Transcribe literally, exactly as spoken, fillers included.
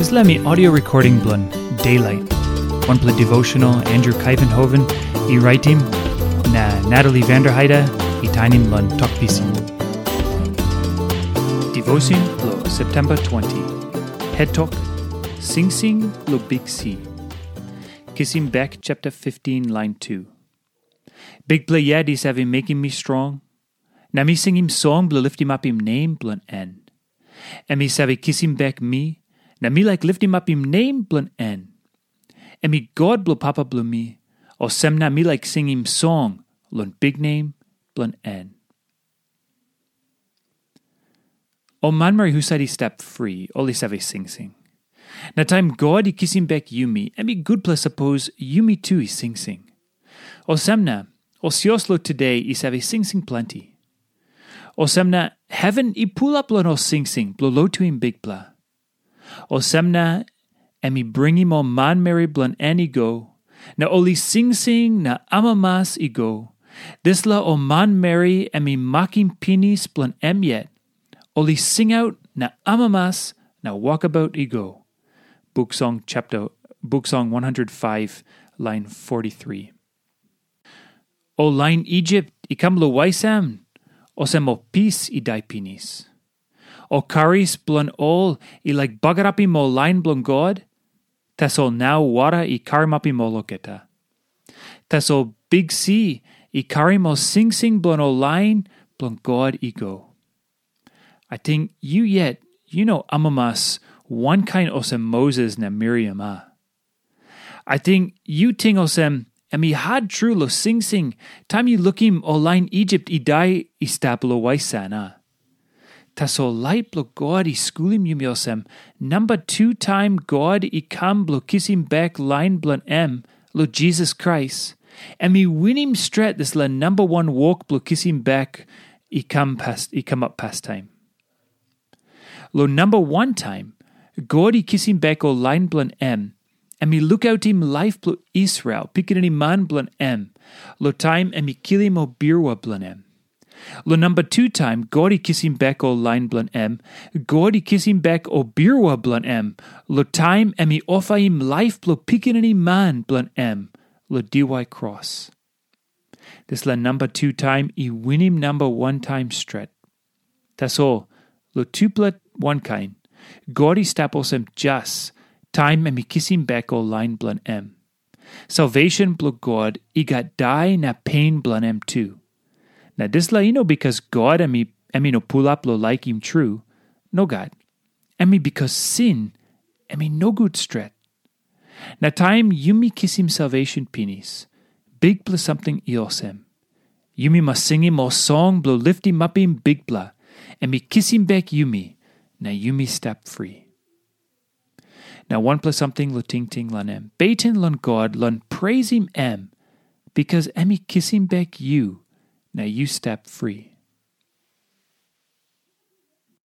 Dispela mi audio recording bilong Daylight, wanpela devotional Andrew Kaivenhoven i raitim, na Natalie Vanderheide i tainim long Tok Pisin. Devotion lo September twenty. Het tok, Singsing lo Bik Si. Kisim bek chapter fifteen, line two. Bikpela yet i save mekim mi strong, na mi singim song bilong liftimapim nem bilong en. Em i save kisim bek mi, na mi laik liftimapim nem bilong en. Em i God bilong papa bilong mi, olsem na mi laik singim song long biknem bilong en. Ol manmeri husat i stap fri, ol i save singsing. Na taim God i kisim bek yumi, em i gutpela sapos yumi tu i singsing. Olsem na, ol sios lo tude i save singsing planti. Olsem na, heven i pulap long ol singsing bilong lotuim Bikpela. Olsem na, em i bringim ol manmeri bilong en i go, na ol i singsing na amamas i go. Dispela ol manmeri em i makim pinis bilong em yet, ol i singaut na amamas na wokabaut i go. Buk Song chapter, Buk Song one hundred five, line forty-three. Ol lain Isip i kam long waisam, olsem ol pis i dai pinis. Ol karis bilong ol i laik bagarapim ol lain bilong God, tasol nau wara i karamapim ol olgeta. Tasol Bik Si i karim ol singsing bilong ol lain bilong God i go. Ating yu yet, yu no amamas wankain olsem Moses na Miriam, a? Ating yu ting olsem, em i hat tru long singsing, taim yu lukim ol lain Isip i dai i stap long waisam, a? Tasol lait bilong God i skulim yumi olsem, namba tu taim God i kam bilong kisim bek lain bilong em long Jisas Krais, em i winim stret dispela namba wan wok bilong kisim bek i kam pas, i kamap pastaim. Long namba wan taim, God i kisim bek ol lain bilong em, em i lukautim laip bilong Israel, pikinini man bilong em, long taim em i kilim ol birua bilong em. Long namba tu taim God i kisim bek ol lain bilong em, God i kisim bek ol birua bilong em, long taim em i ofaim laip bilong pikinini man bilong em long diwai kros. Dispela namba tu taim i winim namba wan taim stret. Tasol, long tupela wankain, God i stap olsem jas taim em i kisim bek ol lain bilong em. Salvation bilong God i gat dai na pen bilong em tu. Na dispela i no bikas God em i, em i no pulap long laikim tru. Nogat. Em i bikas sin, em i nogut stret. Na taim yumi kisim salvation pinis, bikpela samting i olsem. Yumi mas singim ol song bilong liftimapim Bikpela, em i kisim bek yumi, na yumi stap fri. Na wanpela samting long tingting long em. Beten long God long preisim em, bikas em i kisim bek yu, na yu stap fri.